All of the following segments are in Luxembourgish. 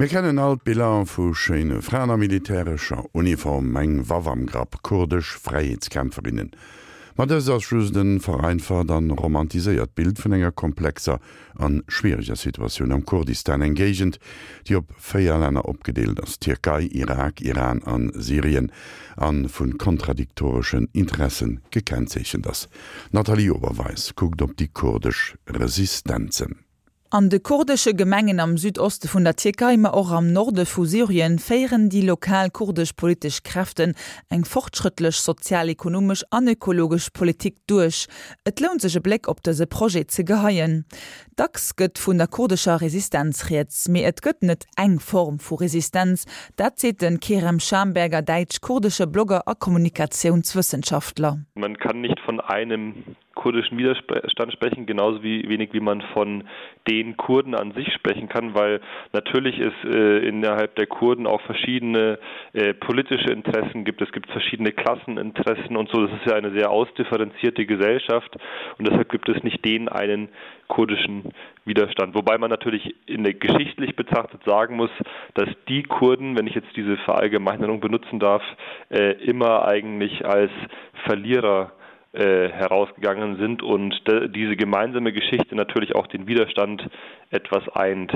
Mir kennen all d'Biller vu schéine Fraen a militärescher Uniform, eng Waff am Grapp, kurdesch Fräiheetskämpferinnen. Ma dëst ass just e vereinfacht an romantiséiert Bild vun enger komplexer an schwiereger Situatioun am Kurdistan, eng Géigend, déi op 4 Länner opgedeelt ass, Tierkei, Irak, Iran an Syrien, an vun kontradiktoreschen Interessen gekennzeechent ass. D'Nathalie Oberweis kuckt op déi kurdesch Resistenzen. An de kurdesche Gemengen am Südoste vun der Tierkei, ma och am Norde vu Syrien féieren déi lokal kurdesch politesch Kräften eng fortschrëttlech sozial-ekonomesch an ökologesch Politik duerch. Et lount sech e Bléck op dëse Projet ze geheien. Dacks gëtt vun der kurdescher Resistenz rieds, mee et gëtt net eng Form vu Resistenz. Dat seet de Kerem Schamberger, däitsch-kurdesche Blogger a Kommunikatiounswëssenschaftler. Man kann nicht von einem kurdischen Widerstand sprechen, genauso wie wenig wie man von den Kurden an sich sprechen kann, weil natürlich es äh, innerhalb der Kurden auch verschiedene äh, politische Interessen gibt. Es gibt verschiedene Klasseninteressen und so. Das ist ja eine sehr ausdifferenzierte Gesellschaft und deshalb gibt es nicht den einen kurdischen Widerstand. Wobei man natürlich in der geschichtlich betrachtet sagen muss, dass die Kurden, wenn ich jetzt diese Verallgemeinerung benutzen darf, äh, immer eigentlich als Verlierer äh, herausgegangen sind und diese gemeinsame Geschichte natürlich auch den Widerstand etwas eint.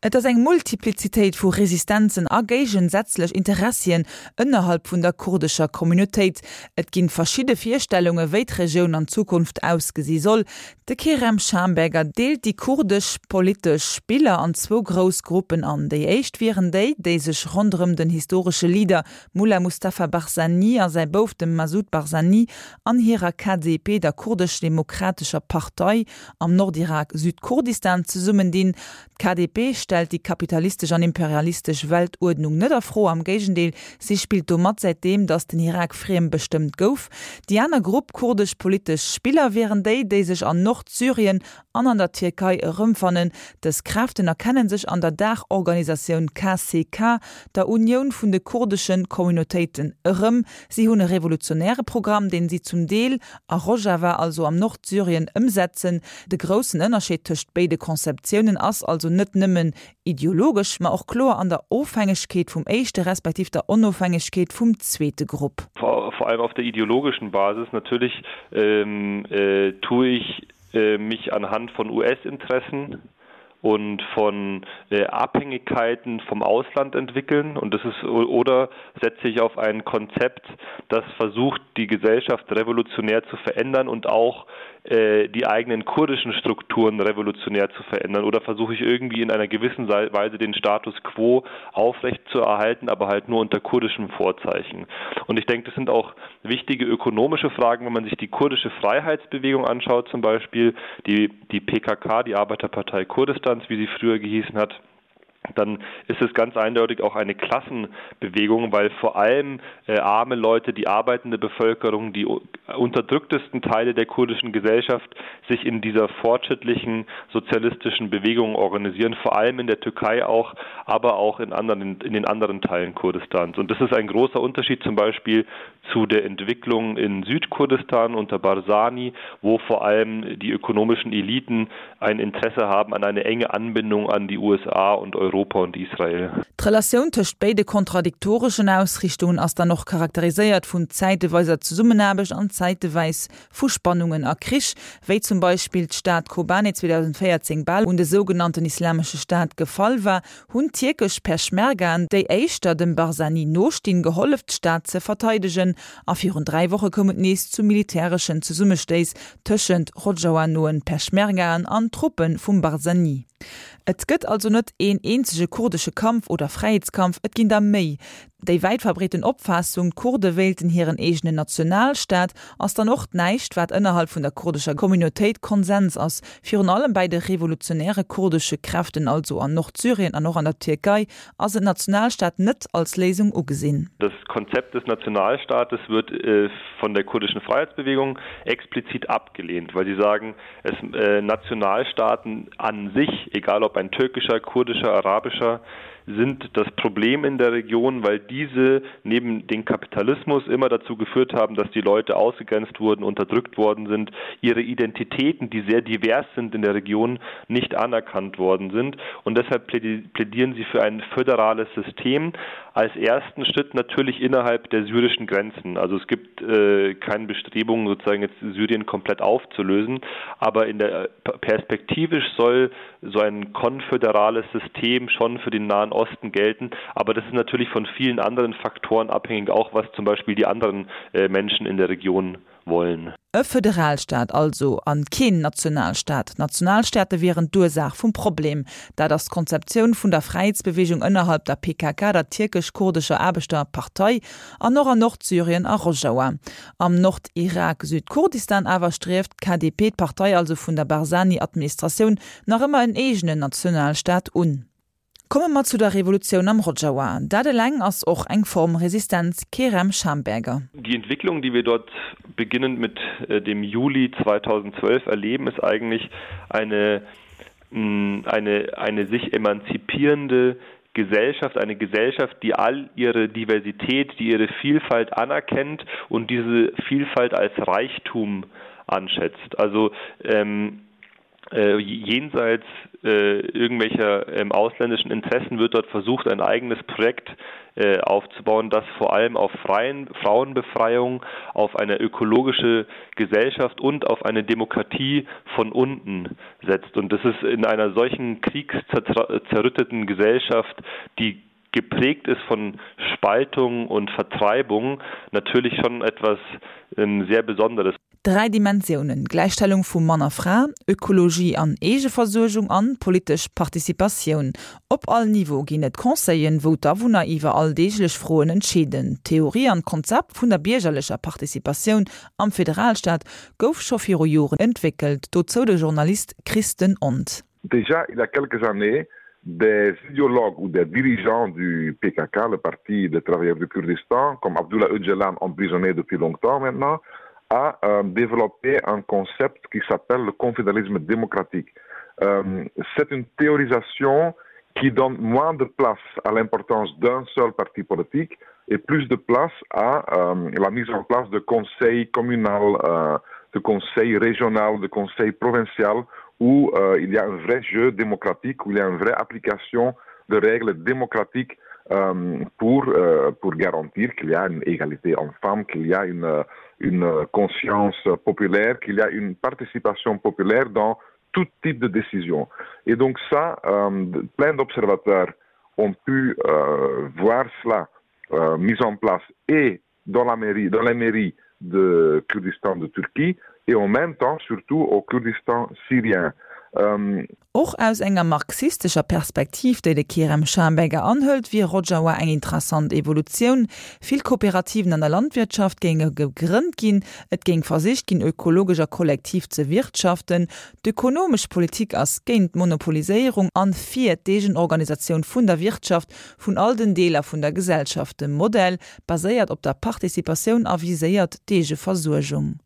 Et ass eng Multiplizitéit vu Resistenzen a géigensätzlech Interessien ënnerhalb vun der kurdescher Communautéit. Et ginn verschidde Virstellunge wéi d'Regioun an Zukunft ausgesi soll. De Kerem Schamberger deelt déi kurdesch politesch Spiller an zwou grouss Gruppen an. Déi éischt wieren déi, déi sech ronderëm den historesche Leader Mullah Mustafa Barzani a säi Bouf, dem Massoud Barzani, an hirer KDP, der Kurdesch-Demokratescher Partei am Nordirak, Südkurdistan, zesummendinn. D'KDP stellt déi kapitalistesch an imperialistesch Weltuerdnung net a Fro, am Géigendeel, si spillt do mat, säitdeem datt den Irak friem bestëmmt gouf. Déi aner Grupp kurdesch politesch Spiller wieren déi, déi sech an Nordsyrien an an der Tierkei erëmfannen. Dës Kräften erkennen sech an der Daachorganisatioun KCK, der Unioun vun de kurdesche Communautéiten, erëm. Si hunn e revolutionäre Programm, deen si zum Deel a Rojava, also am Nordsyrien, ëmsetzen. De groussen Ënnerscheed tëscht béide Conceptiounen ass also net nëmmen ideologesch, ma och kloer an der Ofhängegkeet vum éischte respektiv der Onofhängegkeet vum zweete Grupp. Vor allem auf der ideologischen Basis natürlich tue ich mich anhand von US-Interessen und von äh, Abhängigkeiten vom Ausland entwickeln und das ist oder setze ich auf ein Konzept, das versucht, die Gesellschaft revolutionär zu verändern und auch äh, die eigenen kurdischen Strukturen revolutionär zu verändern oder versuche ich irgendwie in einer gewissen Weise den Status quo aufrecht zu erhalten, aber halt nur unter kurdischem Vorzeichen. Und ich denke, das sind auch wichtige ökonomische Fragen, wenn man sich die kurdische Freiheitsbewegung anschaut zum Beispiel, die, die PKK, die Arbeiterpartei Kurdistans, wie sie früher gehießen hat, dann ist es ganz eindeutig auch eine Klassenbewegung, weil vor allem äh, arme Leute, die arbeitende Bevölkerung, die unterdrücktesten Teile der kurdischen Gesellschaft sich in dieser fortschrittlichen sozialistischen Bewegung organisieren, vor allem in der Türkei auch, aber auch in anderen in den anderen Teilen Kurdistans. Und das ist ein großer Unterschied zum Beispiel zu der Entwicklung in Südkurdistan unter Barzani, wo vor allem die ökonomischen Eliten ein Interesse haben an eine enge Anbindung an die USA und Europa und Israel. D'Relatioun tëscht béide kontradiktoreschen Ausriichtungen ass dann och charakteriséiert vun zäiteweiser Zesummenaarbecht an zäiteweis vu Spannungen a Krich, wéi zum Beispill d'Stad Kobane 2014 bal un de sougenannten Islamesche Staat gefall war, hunn tierkesch Peschmergaen, déi éischter dem Barzani nostinn, gehollef d'Stad ze verteidegen. A virun 3 Woche koum et nees zu militäreschen Zesummestéiss tëschent Rojava-noen Peschmergaen an Truppe vum Barzani. Et gëtt also net een eenzege kurdesche Kampf oder Fräiheetskampf, et ginn der méi. Déi wäit verbreeten Opfaassung, d'Kurde wéilten hiren eegenen Nationalstaat, ass dann och näischt, wat ënnerhalb vun der kurdescher Communautéit Konsens ass. Virun allem bäi de revolutionäre kurdesche Kräften, also an Nordsyrien an och an der Tierkei, ass en Nationalstaat net als Léisung ugesinn. Das Konzept des Nationalstaates wird von der kurdischen Freiheitsbewegung explizit abgelehnt, weil sie sagen, es Nationalstaaten an sich, egal ob ein türkischer, kurdischer, arabischer. sind das Problem in der Region, weil diese neben dem Kapitalismus immer dazu geführt haben, dass die Leute ausgegrenzt wurden, unterdrückt worden sind, ihre Identitäten, die sehr divers sind in der Region, nicht anerkannt worden sind. Und deshalb plädieren sie für ein föderales System als ersten Schritt natürlich innerhalb der syrischen Grenzen. Also es gibt äh, keine Bestrebungen, sozusagen jetzt Syrien komplett aufzulösen, aber in der perspektivisch soll so ein konföderales System schon für den Nahen Osten gelten. Aber das ist natürlich von vielen anderen Faktoren abhängig, auch was zum Beispiel die anderen äh, Menschen in der Region wollen. E Föderalstaat also, an keen Nationalstaat. Nationalstaate wieren d'Ursaach vum Problem. Dat ass d'Konzeptioun vun der Fräiheetsbeweegung ënnerhalb der PKK, der tierkesch-kurdescher Aarbechterpartei, an och an Nordsyrien a Rojawa. Am Nordirak, Südkurdistan, awer strieft d'KDP, d'Partei also vun der Barzani-Administratioun, nach ëmmer en eegenen Nationalstaat un. Komme mer zu der Revolutioun am Rojawa. Dat eleng ass och eng Form Resistenz, Kerem Schamberger. Die Entwicklung, die wir dort beginnend mit äh, dem Juli 2012 erleben, ist eigentlich eine, mm, eine, eine sich emanzipierende Gesellschaft, eine Gesellschaft, die all ihre Diversität, die ihre Vielfalt anerkennt und diese Vielfalt als Reichtum anschätzt. Also ähm, äh, jenseits äh, irgendwelcher ähm, ausländischen Interessen wird dort versucht, ein eigenes Projekt äh, aufzubauen, das vor allem auf freien Frauenbefreiung, auf eine ökologische Gesellschaft und auf eine Demokratie von unten setzt. Und das ist in einer solchen kriegszerrütteten Gesellschaft, die geprägt ist von Spaltung und Vertreibung, natürlich schon etwas ähm, sehr Besonderes. Dräi Dimensiounen, Gläichstellung vu Mann a Fra, Ökologie an Eegeversuergung an politesch Participatioun. Op all Niveau ginn et Conseillen, wou d'Awunner iwwer alldeeglech Froen entscheeden. D'Theorie an d'Konzept vun der biergerlecher Participatioun am Federalstaat gouf scho viru Joren entwéckelt. Dozou de Journalist Christen Ont. Déjà il y a quelques années, des idéologues ou des dirigeants du PKK, le parti des travailleurs du Kurdistan, comme Abdullah Öcalan emprisonné depuis longtemps maintenant, a euh, développé un concept qui s'appelle le confédéralisme démocratique. Euh, C'est une théorisation qui donne moins de place à l'importance d'un seul parti politique et plus de place à euh, la mise en place de conseils communal, euh, de conseils régional, de conseils provincial où euh, il y a un vrai jeu démocratique, où il y a une vraie application de règles démocratiques euh, pour, euh, pour garantir qu'il y a une égalité en femmes, qu'il y a une, euh, une conscience populaire, qu'il y a une participation populaire dans tout type de décision. Et donc ça, euh, plein d'observateurs ont pu euh, voir cela euh, mis en place et dans la mairie, dans la mairie de Kurdistan de Turquie et en même temps surtout au Kurdistan syrien. Ähm, Och aus enger marxistescher Perspektiv, déi de Kerem Schamberger anhëlt, wier Rojava eng interessant Evolutioun. Vill Kooperativen an der Landwirtschaft géinge gegrënnt ginn, et géing versicht ginn, ökologesch a kollektiv ze wirtschaften. D'ökonomesch Politik ass géint d'Monopoliséierung an fir d'Eegenorganisatioun vun der Wirtschaft vun all den Deeler vun der Gesellschaft. De Modell baséiert op der Participatioun a viséiert d'Eegeversuergung.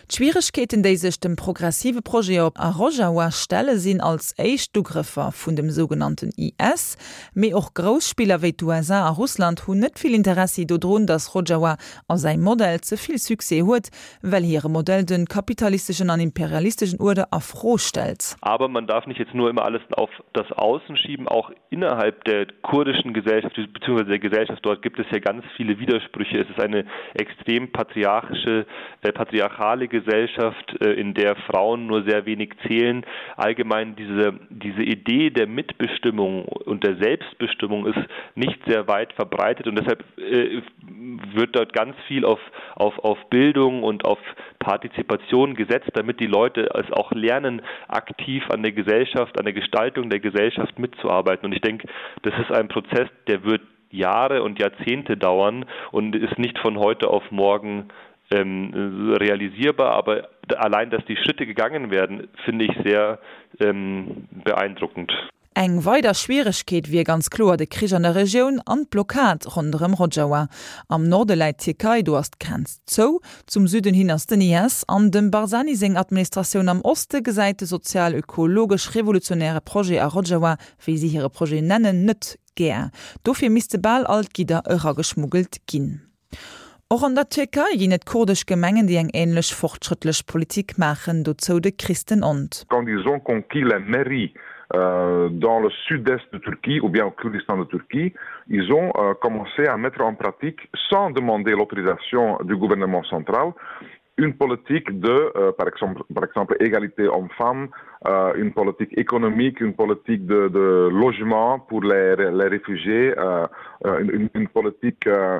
D'Schwieregkeeten, déi sech dem progressive Projet op a Rojawa stelle sinn als éischt d'Ugrëffer vun dem sougenannten IS. Mee och grouss Spiller wéi d'USA a Russland hunn net vill Interessi dodrun, datt Rojawa a säi Modell ze vill Succès huet, well hire Modell de kapitalisteschen an imperialisteschen Uerder a Fro stellt. Aber man darf nicht jetzt nur immer alles auf das Außen schieben, auch innerhalb der kurdischen Gesellschaft bzw. der Gesellschaft dort gibt es ja ganz viele Widersprüche. Es ist eine extrem patriarchische, äh, patriarchale Gesellschaft, äh, in der Frauen nur sehr wenig zählen. Allgemein diese, diese Idee der Mitbestimmung und der Selbstbestimmung ist nicht sehr weit verbreitet und deshalb äh, wird dort ganz viel auf, auf, auf Bildung und auf Partizipation gesetzt, damit die Leute es auch lernen, aktiv an der Gesellschaft, an der Gestaltung der Gesellschaft mitzuarbeiten. Und ich denke, das ist ein Prozess, der wird Jahre und Jahrzehnte dauern und ist nicht von heute auf morgen ähm, realisierbar, aber allein, dass die Schritte gegangen werden, finde ich sehr ähm, beeindruckend. Eng weider Schwieregkeet wier ganz kloer de Krich an der Regioun an d'Blockad ronderëm Rojava. Am Norde läit d'Tierkei, do ass d'Grenz zou. Zum Süden hin ass den IS an dem Barzani seng Administratioun. Am Oste gesäit de sozial-ökologesch-revolutionäre Projet a Rojava, wéi si hire Projet nennen, net gär. Dofir misste bal all d'Gidder erageschmuggelt ginn. Och an der Tierkei ginn et kurdesch Gemengen, déi eng änlech fortschrëttlech Politik maachen, dozou de Christenond. Quand ils ont conquis la mairie dans le sud-est de Turquie ou bien au Kurdistan de Turquie, ils ont commencé à mettre en pratique, sans demander l'autorisation du gouvernement central, une politique de euh, par exemple par exemple égalité homme-femme euh, une politique économique une politique de, de logement pour les, les réfugiés euh, euh une, une politique euh,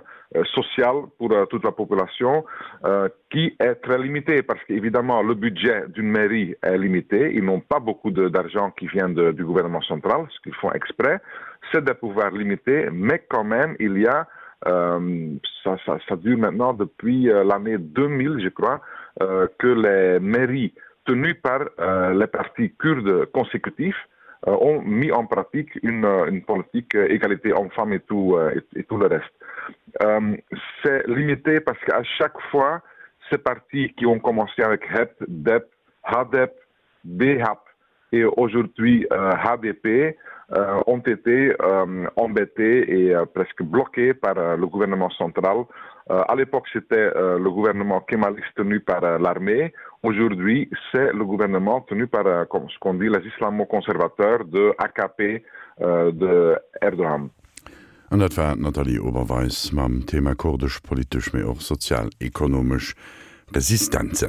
sociale pour euh, toute la population euh, qui est très limitée parce qu'évidemment le budget d'une mairie est limité ils n'ont pas beaucoup d'argent qui vient de, du gouvernement central ce qu'ils font exprès c'est des pouvoirs limités mais quand même il y a euh, ça, ça, ça dure maintenant depuis euh, l'année 2000 je crois euh, que les mairies tenues par euh, les partis kurdes consécutifs euh, ont mis en pratique une, euh, une politique euh, égalité homme-femme et tout euh, et, et tout le reste. Euh, C'est limité parce qu'à chaque fois, ces partis qui ont commencé avec HEP, DEP, HADEP, BHAP et aujourd'hui euh, HDP euh, ont été euh, embêtés et euh, presque bloqués par euh, le gouvernement central. Euh, à l'époque, c'était euh, le gouvernement kémaliste tenu par euh, l'armée. Aujourd'hui, c'est le gouvernement tenu par euh, comme ce qu'on dit les islamo-conservateurs de AKP euh, de Erdogan. An dat war d'Nathalie Oberweis mam Thema kurdesch politesch, mee och sozial-ekonomesch Resistenzen.